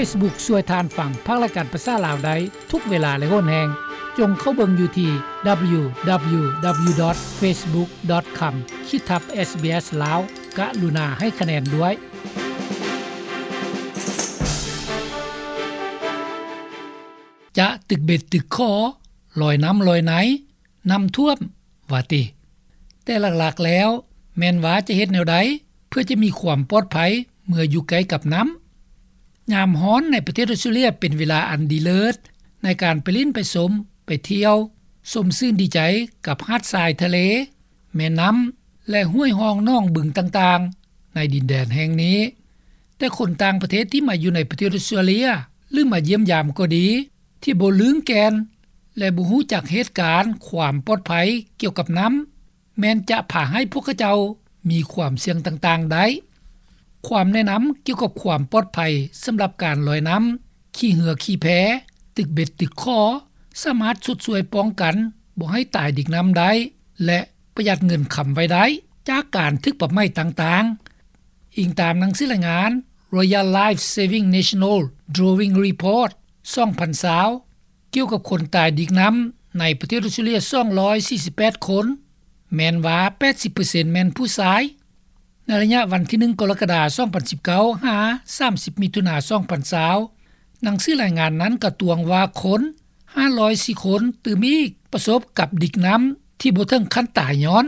Facebook ຊ່ວຍທ່ານຟັງພັກລາຍການພາສາລາວໄດ້ທຸກເວລາ ແລະ ໂຫນແຮງ. ຈົ່ງເຂົ້າເບິ່ງຢູ່ທີ່ www.facebook.com ຂີດທັບ SBS ລາວ. ກະລຸນາໃຫ້ຄະແນນດ້ວຍ. ຈະຕຶກເບັດຕຶກຂໍ, ລອຍນ້ຳລອຍໃນ, ນ້ຳຖ້ວມ ວ່າຕິ. ແຕ່ຫຼັກໆແລ້ວ ແມ່ນວ່າຈະເຮັດແນວໃດ ເພື່ອຈະມີຄວາມປອດໄພເມື່ອຢູ່ໃກ້ກັບນ້ຳ? ຍາມຮ້ອນໃນປະເທດອອສເຕຣເລຍເປັນເວລາອັນດີເລີດໃນການໄປຫຼິ້ນໄປຊົມ, ໄປທ່ຽວ, ຊົມຊື່ນດີໃຈກັບຫາດຊາຍທະເລ, ແມ່ນ້ຳ ແລະ ຫ້ວຍຮ່ອງໜອງບຶງຕ່າງໆໃນດິນແດນແຫ່ງນີ້. ແຕ່ຄົນຕ່າງປະເທດທີ່ມາຢູ່ໃນປະເທດອອສເຕຣເລຍ ຫຼື ມາຢ້ຽມຢາມກໍດີ ທີ່ບໍ່ລຶ້ງແກ່ນ ແລະ ບໍ່ຮູ້ຈັກເຫດການຄວາມປອດໄພກ່ຽວກັບນ້ຳ ແມ່ນຈະພາໃຫ້ພວກເຂົາເຈົ້າມີຄວາມສ່ຽງຕ່າງໆໄດ້. ຄວາມແນະນຳກ່ຽວກັບຄວາມປອດໄພສຳລັບການລອຍນ້ຳ, ຂີ່ເຮືອຂີ່ແພ, ຕຶກເບັດຕຶກຂໍ ສາມາດຊົດຊ່ວຍປ້ອງກັນບໍ່ໃຫ້ຕາຍດິກນ້ຳໄດ້ ແລະ ປະຢັດເງິນຄຳໄວ້ໄດ້ຈາກການຖືກປັບໃໝຕ່າງໆ, ອີງຕາມໜັງສືລາຍງານ Royal Life Saving National Drawing Report ສອງພັນຊາວ ກ່ຽວກັບຄົນຕາຍດິກນ້ຳໃນປະເທດອອສເຕຣເລຍສອງຮ້ອຍສີ່ສິບແປດຄົນ, ແມ່ນວ່າແປດສິບເປີເຊັນແມ່ນຜູ້ຊາຍ. ໃນໄລຍະວັນທີໜຶ່ງ ກໍລະກະດາ ສອງພັນສິບເກົ້າ ຫາ ສາມສິບ ມິຖຸນາ ສອງພັນຊາວ ໜັງສືລາຍງານນັ້ນກະຕວງວ່າຄົນຫ້າຮ້ອຍສີ່ຄົນຕື່ມອີກປະສົບກັບດິກນ້ຳທີ່ບໍ່ເຖິງຂັ້ນຕາຍຍ້ອນ.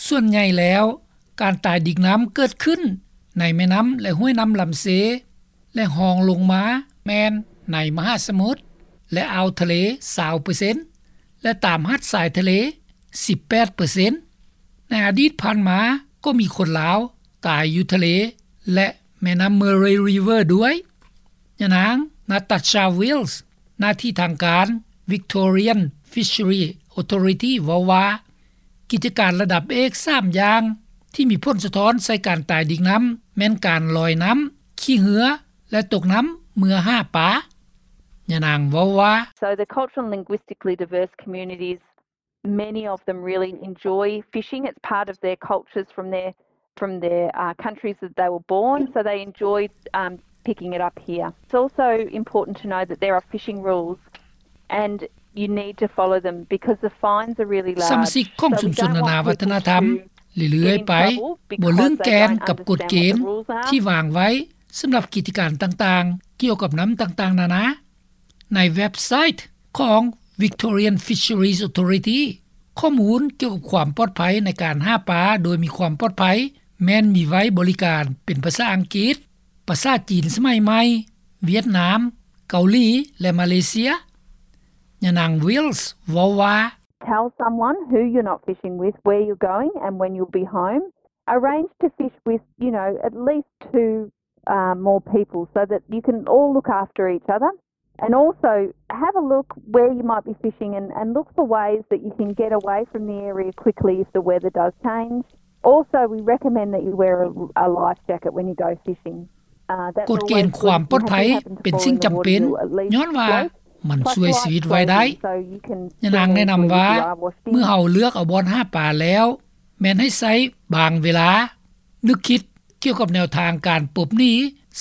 ສ່ວນໃຫຍ່ແລ້ວ ການຕາຍດິກນ້ຳເກີດຂຶ້ນໃນແມ່ນ້ຳ ແລະ ຫ້ວຍນ້ຳລຳເຊ ແລະ ຮອງລົງມາແມ່ນໃນມະຫາສະໝຸດ ແລະ ອ່າວທະເລ ຊາວເປີເຊັນ ແລະ ຕາມຫາດຊາຍທະເລ ສິບແປດເປີເຊັນ. ໃນອະດີດຜ່ານມາກໍມີຄົນລາວຕາຍຢູ່ທະເລ ແລະ ແມ່ນ້ຳ Murray River ດ້ວຍ. ຍານາງ Natasha Wills ໜ້າທີ່ທາງການ Victorian Fisheries Authority ເວົ້າວ່າ ກິດຈະການລະດັບເອກສາມຢ່າງທີ່ມີຜົນສະທ້ອນໃສ່ການຕາຍດິກນ້ຳ ແມ່ນການລອຍນ້ຳ, ຂີ່ເຮືອ ແລະ ຕົກນ້ຳເມື່ອຫາປາ. ຍານາງເວົ້າວ່າ So the cultural and linguistically diverse communities, many of them really enjoy fishing. It's part of their cultures from their, from their, uh, countries that they were born, so they enjoy, um, picking it up here. It's also important to know that there are fishing rules and you need to follow them because the fines are really large. ສະມາຊິກຂອງຊຸມຊົນນານາວັດທະນະທຳເລື້ອຍໆໄປ ບໍ່ລຶ້ງແກ່ນກັບກົດເກນທີ່ວາງໄວ້ສຳລັບກິດຈະການຕ່າງໆ ກ່ຽວກັບນ້ຳຕ່າງໆນານາ. ໃນເວັບໄຊຂອງ Victorian Fisheries Authority ຂໍ້ມູນກ່ຽວກັບຄວາມປອດໄພໃນການຫາປາໂດຍມີຄວາມປອດໄພ ແມ່ນມີໄວ້ບໍລິການເປັນພາສາອັງກິດ, ພາສາຈີນສະໄໝໃໝ່, ຫວຽດນາມ, ເກົາຫຼີ ແລະ ມາເລເຊຍ. ຍານາງ Wills ເວົ້າວ່າ Tell someone who you're not fishing with, where you're going and when you'll be home. Arrange to fish with, you know, at least two, uh, more people so that you can all look after each other. And also have a look where you might be fishing and, and look for ways that you can get away from the area quickly if the weather does change. Also, we recommend that you wear a, a life jacket when you go fishing. ກົດເກນຄວາມປອດໄພເປັນສິ່ງຈຳເປັນ ຍ້ອນວ່າມັນຊ່ວຍຊີວິດໄວ້ໄດ້. ຍານາງແນະນຳວ່າ ເມື່ອເຮົາເລືອກເອົາບ່ອນຫາປາແລ້ວ ແມ່ນໃຫ້ໃຊ້ບາງເວລາ ນຶກຄິດກ່ຽວກັບແນວທາງການປົບໜີ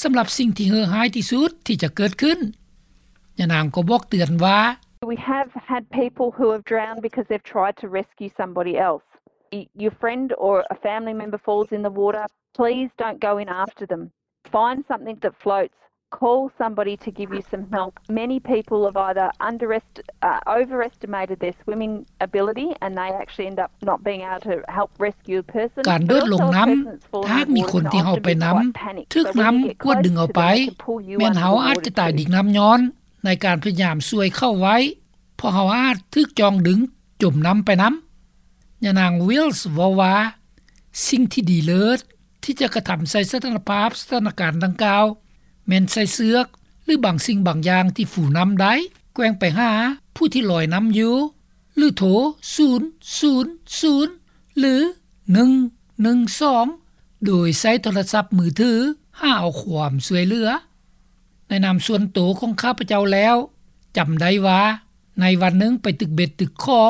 ສຳລັບສິ່ງທີ່ເຫື່ອຮ້າຍທີ່ສຸດທີ່ຈະເກີດຂຶ້ນ. ຍານາງກໍບອກເຕືອນວ່າ We have had people who have drowned because they've tried to rescue somebody else. Y-, your friend or a family member falls in the water, please don't go in after them. Find something that floats. Call somebody to give you some help. Many people have either underest-, uh, overestimated their swimming ability and they actually end up not being able to help rescue a person. ການໂດດລົງນ້ຳ ຖ້າຫາກມີຄົນທີ່ເຮົາໄປນຳຖືກນ້ຳກວາດດຶງເອົາໄປ ແມ່ນເຮົາອາດຈະຕາຍດິກນ້ຳຍ້ອນໃນການພະຍາຍາມຊ່ວຍເຂົາໄວ້ ເພາະເຮົາອາດຖືກຈ່ອງດຶງຈົມນ້ຳໄປນຳ. ຍານາງ Wills ເວົ້າວ່າ ສິ່ງທີ່ດີເລີດ ທີ່ຈະກະທຳໃສ່ສະຖານະພາບສະຖານະການດັ່ງກ່າວ ແມ່ນໃສ່ເຊືອກ ຫຼື ບາງສິ່ງບາງຢ່າງທີ່ຟູນ້ຳໄດ້ ແກວ່ງໄປຫາຜູ້ທີ່ລອຍນ້ຳຢູ່ ຫຼື ໂທ ສູນສູນສູນ ຫຼື ໜຶ່ງໜຶ່ງສອງ ໂດຍໃຊ້ໂທລະສັບມືຖືຫາເອົາຄວາມຊ່ວຍເຫຼືອ. ໃນນາມສ່ວນໂຕຂອງຂ້າພະເຈົ້າແລ້ວ ຈຳໄດ້ວ່າ ໃນວັນໜຶ່ງໄປຕຶກເບັດຕຶກຂໍ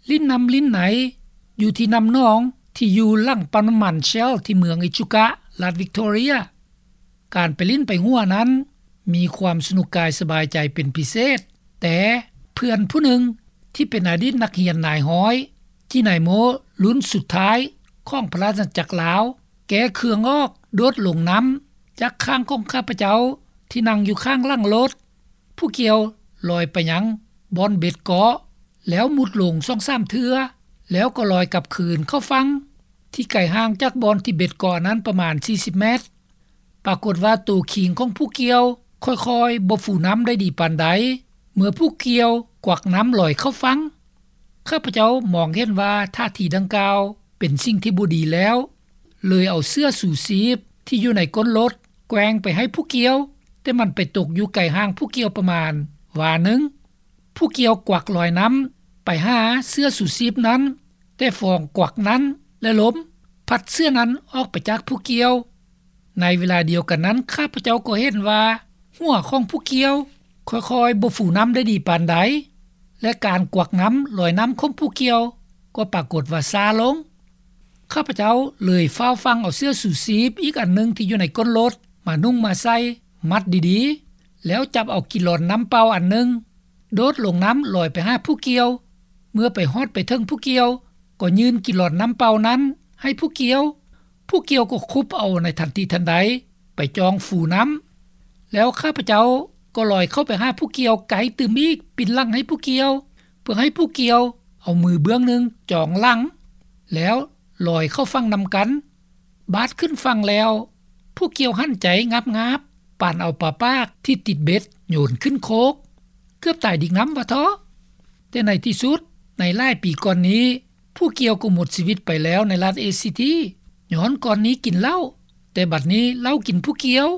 ຫຼິ້ນນ້ຳຫຼິ້ນໃນ ຢູ່ທີ່ນ້ຳໜອງທີ່ຢູ່ຫຼັງປ້ຳນ້ຳມັນ Shell ທີ່ເມືອງ Echuca ລັດ Victoria. ການໄປຫຼິ້ນໄປຫົວນັ້ນ ມີຄວາມສະໜຸກກາຍສະບາຍໃຈເປັນພິເສດ. ແຕ່ເພື່ອນຜູ້ໜຶ່ງທີ່ເປັນອະດີດນັກຮຽນນາຍຮ້ອຍ ຈີນາຍໂມ ລຸ້ນສຸດທ້າຍຂອງພະລາຊະອານາຈັກລາວ ແກ້ເຄື່ອງອອກ ໂດດລົງນ້ຳຈາກຂ້າງຂອງຂ້າພະເຈົ້າທີ່ນັ່ງຢູ່ຂ້າງຫຼັງລົດ. ຜູ້ກ່ຽວລອຍໄປຍັງບ່ອນເບັດເກາະ ແລ້ວມຸດລົງສອງສາມເທື່ອ ແລ້ວກໍລອຍກັບຄືນເຂົ້າຝັ່ງ ທີ່ໄກຫ່າງຈາກບ່ອນທີ່ເບັດເກາະນັ້ນປະມານສີ່ສິບແມັດ. ປາກົດວ່າໂຕຄີງຂອງຜູ້ກ່ຽວຄ່ອຍໆບໍ່ຟູນ້ຳໄດ້ດີປານໃດ ເມື່ອຜູ້ກ່ຽວກວັກນ້ຳລອຍເຂົ້າຝັ່ງ. ຂ້າພະເຈົ້າມອງເຫັນວ່າທ່າທີດັ່ງກ່າວເປັນສິ່ງທີ່ບໍ່ດີແລ້ວ ເລີຍເອົາເສື້ອຊູຊີບທີ່ຢູ່ໃນກົ້ນລົດແກວ່ງໄປໃຫ້ຜູ້ກ່ຽວ, ແຕ່ມັນໄປຕົກຢູ່ໄກຫ່າງຜູ້ກ່ຽວປະມານວາໜຶ່ງ. ຜູ້ກ່ຽວກວັກລອຍນ້ຳໄປຫາເສື້ອຊູຊີບນັ້ນ, ແຕ່ຟອງກວັກນັ້ນ ແລະ ລົມພັດເສື້ອນັ້ນອອກໄປຈາກຜູ້ກ່ຽວ. ໃນເວລາດຽວກັນນັ້ນ ຂ້າພະເຈົ້າກໍເຫັນວ່າຫົວຂອງຜູ້ກ່ຽວຄ່ອຍໆບໍ່ຟູນ້ຳໄດ້ດີປານໃດ ແລະ ການກວັກນ້ຳລອຍນ້ຳຂອງຜູ້ກ່ຽວກໍປາກົດວ່າຊ້າລົງ. ຂ້າພະເຈົ້າເລີຍຟ້າວຟັ່ງເອົາເສື້ອຊູຊີບອີກອັນໜຶ່ງທີ່ຢູ່ໃນກົ້ນລົດມານຸ່ງມາໃສ່ ມັດດີໆ ແລ້ວຈັບເອົາກິລອນນ້ຳເປົ່າອັນໜຶ່ງ ໂດດລົງນ້ຳລອຍໄປຫາຜູ້ກ່ຽວ. ເມື່ອໄປຮອດໄປເຖິງຜູ້ກ່ຽວ ກໍຍື່ນກິລອນນ້ຳເປົ່ານັ້ນໃຫ້ຜູ້ກ່ຽວ. ຜູ້ກ່ຽວກໍຄຸບເອົາໃນທັນທີທັນໃດ ໄປຈ່ອງຟູນ້ຳ. ແລ້ວຂ້າພະເຈົ້າກໍລອຍເຂົ້າໄປຫາຜູ້ກ່ຽວໄກຕື່ມອີກ ປິ່ນຫຼັງໃຫ້ຜູ້ກ່ຽວ ເພື່ອໃຫ້ຜູ້ກ່ຽວເອົາມືເບື້ອງໜຶ່ງຈອງຫຼັງ ແລ້ວລອຍເຂົ້າຝັ່ງນຳກັນ. ບາດຂຶ້ນຝັ່ງແລ້ວ ຜູ້ກ່ຽວຫັນໃຈງາບໆ ປານເອົາປາປາກທີ່ຕິດເບັດໂຍນຂຶ້ນໂຄກ ເກືອບຕາຍດິກນ້ຳວ່າເທາະ. ແຕ່ໃນທີ່ສຸດ ໃນຫຼາຍປີກ່ອນນີ້ ຜູ້ກ່ຽວກໍໝົດຊີວິດໄປແລ້ວໃນລັດເອຊີທີ ຍ້ອນກ່ອນນີ້ກິນເຫຼົ້າ, ແຕ່ບັດນີ້ເຫຼົ້າກິນຜູ້ກ່ຽວ.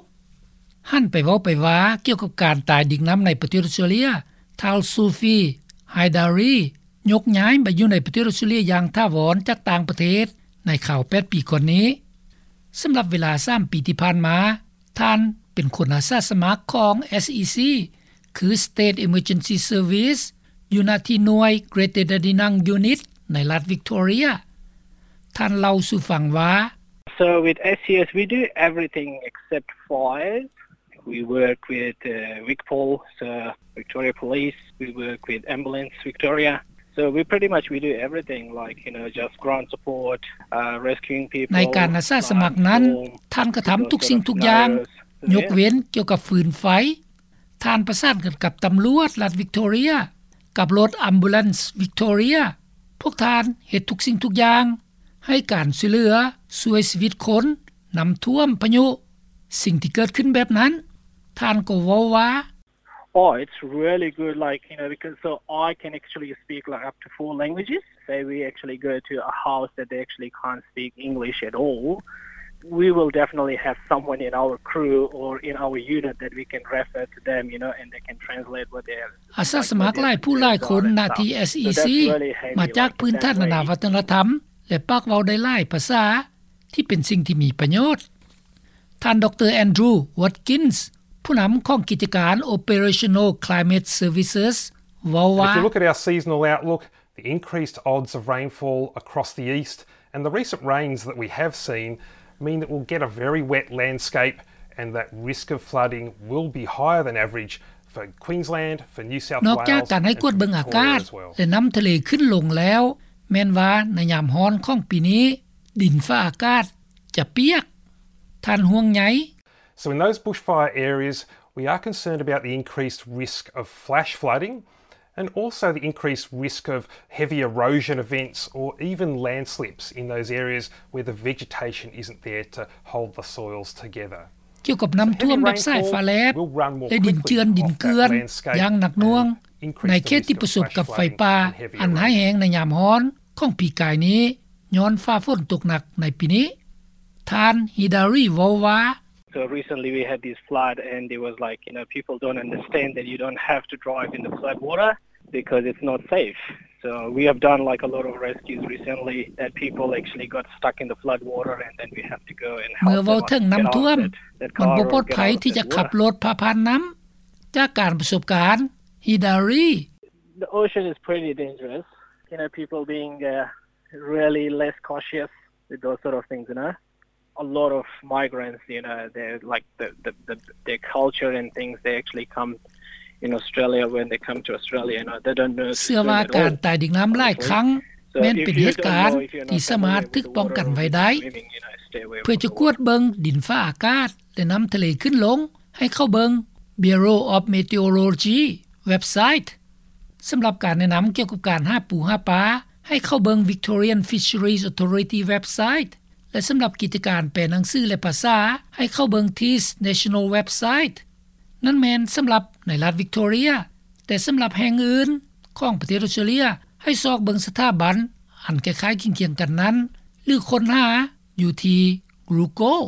ຫັນໄປເວົ້າໄປວ່າກ່ຽວກັບການຕາຍດິກນ້ຳໃນປະເທດອອສເຕຣເລັຍ, ທ່ານ Zulfi Heidari ຍົກຍ້າຍມາຢູ່ໃນປະເທດອອສເຕຣເລັຍຢ່າງຖາວອນຈາກຕ່າງປະເທດໃນຄາວແປດປີກ່ອນນີ້. ສຳລັບເວລາສາມປີທີ່ຜ່ານມາ, ທ່ານເປັນຄົນອາສາສະໝັກຂອງ ເອສອີຊີ ຄື State Emergency Service ຢູ່ນະທີ່ໜ່ວຍ Greater Dandenong Unit ໃນລັດ Victoria. ທ່ານເລົ່າສູ່ຟັງວ່າ So with S E S, we do everything except fires. We work with uh, Vigpol, so Victoria Police. We work with Ambulance Victoria. So we pretty much we do everything, like, you know, just ground support, uh, rescuing people. ໃນການອາສາສະໝັກນັ້ນ, ທ່ານກະທຳທຸກສິ່ງທຸກຢ່າງ, ຍົກເວັ້ນກ່ຽວກັບຟືນໄຟ. ທ່ານປະສານກັນກັບຕຳຫຼວດລັດ Victoria ກັບລົດ Ambulance Victoria. ພວກທ່ານເຮັດທຸກສິ່ງທຸກຢ່າງ ໃຫ້ການຊ່ວຍເຫຼືອ, ຊ່ວຍຊີວິດຄົນ, ນ້ຳຖ້ວມ, ພາຍຸ, ສິ່ງທີ່ເກີດຂຶ້ນແບບນັ້ນ. ທ່ານກໍເວົ້າວ່າ Oh, it's really good, like, you know, because so I can actually speak, like, up to four languages. Say we actually go to a house that they actually can't speak English at all, we will definitely have someone in our crew or in our unit that we can refer to them, you know, and they can translate what they are. ອາສາສະໝັກຫຼາຍຜູ້ຫຼາຍຄົນນະທີ່ ເອສອີຊີ ມາຈາກພື້ນຖານນານາວັດທະນະທຳ ແລະ ປາກເວົ້າໄດ້ຫຼາຍພາສາ ທີ່ເປັນສິ່ງທີ່ມີປະໂຫຍດ. ທ່ານ ດຣ Andrew Watkins ຜູ້ນຳຂອງກິດຈະການ Operational Climate Services ເວົ້າວ່າ If you look at our seasonal outlook, the increased odds of rainfall across the east and the recent rains that we have seen mean that we'll get a very wet landscape and that risk of flooding will be higher than average for Queensland, for New South Wales. ນອກຈາກການໃຫ້ກວດເບິ່ງອາກາດ ແລະ ນ້ຳທະເລຂຶ້ນລົງແລ້ວ ແມ່ນວ່າໃນຍາມຮ້ອນຂອງປີນີ້ ດິນຟ້າອາກາດຈະປຽກ. ທ່ານຫ່ວງໃຍ. So in those bushfire areas, we are concerned about the increased risk of flash flooding and also the increased risk of heavy erosion events or even landslips in those areas where the vegetation isn't there to hold the soils together. ກ່ຽວກັບນ້ຳຖ້ວມແບບສາຍຟ້າແລບ ແລະ ດິນເຈື່ອນດິນເກືອນຢ່າງໜັກໜ່ວງ ໃນເຂດທີ່ປະສົບກັບໄຟປ່າອັນຮ້າຍແຮງໃນຍາມຮ້ອນຂອງປີກາຍນີ້ ຍ້ອນຟ້າຝົນຕົກໜັກໃນປີນີ້. ທ່ານ Heidari ເວົ້າວ່າ So recently we had this flood and it was like, you know, people don't understand that you don't have to drive in the flood water because it's not safe. So we have done, like, a lot of rescues recently that people actually got stuck in the flood water and then we have to go and help them out, get out of it, that car or get out of that water. ເມື່ອເວົ້າເຖິງນ້ຳຖ້ວມ ມັນບໍ່ປອດໄພທີ່ຈະຂັບລົດຜ່າຜ່ານນ້ຳ. ຈາກການປະສົບການ Heidari. The ocean is pretty dangerous. You know, people being, uh, really less cautious with those sort of things, you know. a lot of migrants, you know, they're like the, the, the their culture and things, they actually come in Australia, when they come to Australia, you know, they don't know ເຊື່ອວ່າການຕາຍດິນນ້ຳຫຼາຍຄັ້ງ ແມ່ນເປັນເຫດການທີ່ສາມາດຖືກປ້ອງກັນໄວ້ໄດ້. ເພື່ອຈະກວດເບິ່ງດິນຟ້າອາກາດ ແລະ ນ້ຳທະເລຂຶ້ນລົງ ໃຫ້ເຂົ້າເບິ່ງ Bureau of Meteorology ເວັບໄຊ. ສຳລັບການແນະນຳກ່ຽວກັບການຫາປູຫາປາ ໃຫ້ເຂົ້າເບິ່ງ Victorian Fisheries Authority ເວັບໄຊ ແລະ ສຳລັບກິດຈະການແປໜັງສື ແລະ ພາສາ ໃຫ້ເຂົ້າເບິ່ງ TIS National ເວັບໄຊ. ນັ້ນແມ່ນສຳລັບໃນລັດ Victoria, ແຕ່ສຳລັບແຫ່ງອື່ນຂອງປະເທດ Australia ໃຫ້ຊອກເບິ່ງສະຖາບັນອັນຄ້າຍໆຄຽງກັນນັ້ນ ຫຼື ຄົ້ນຫາຢູ່ທີ່ Google.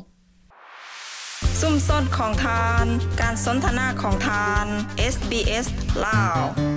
ຊຸມຊົນຂອງທ່ານ, ການສົນທະນາຂອງທ່ານ SBS ລາວ.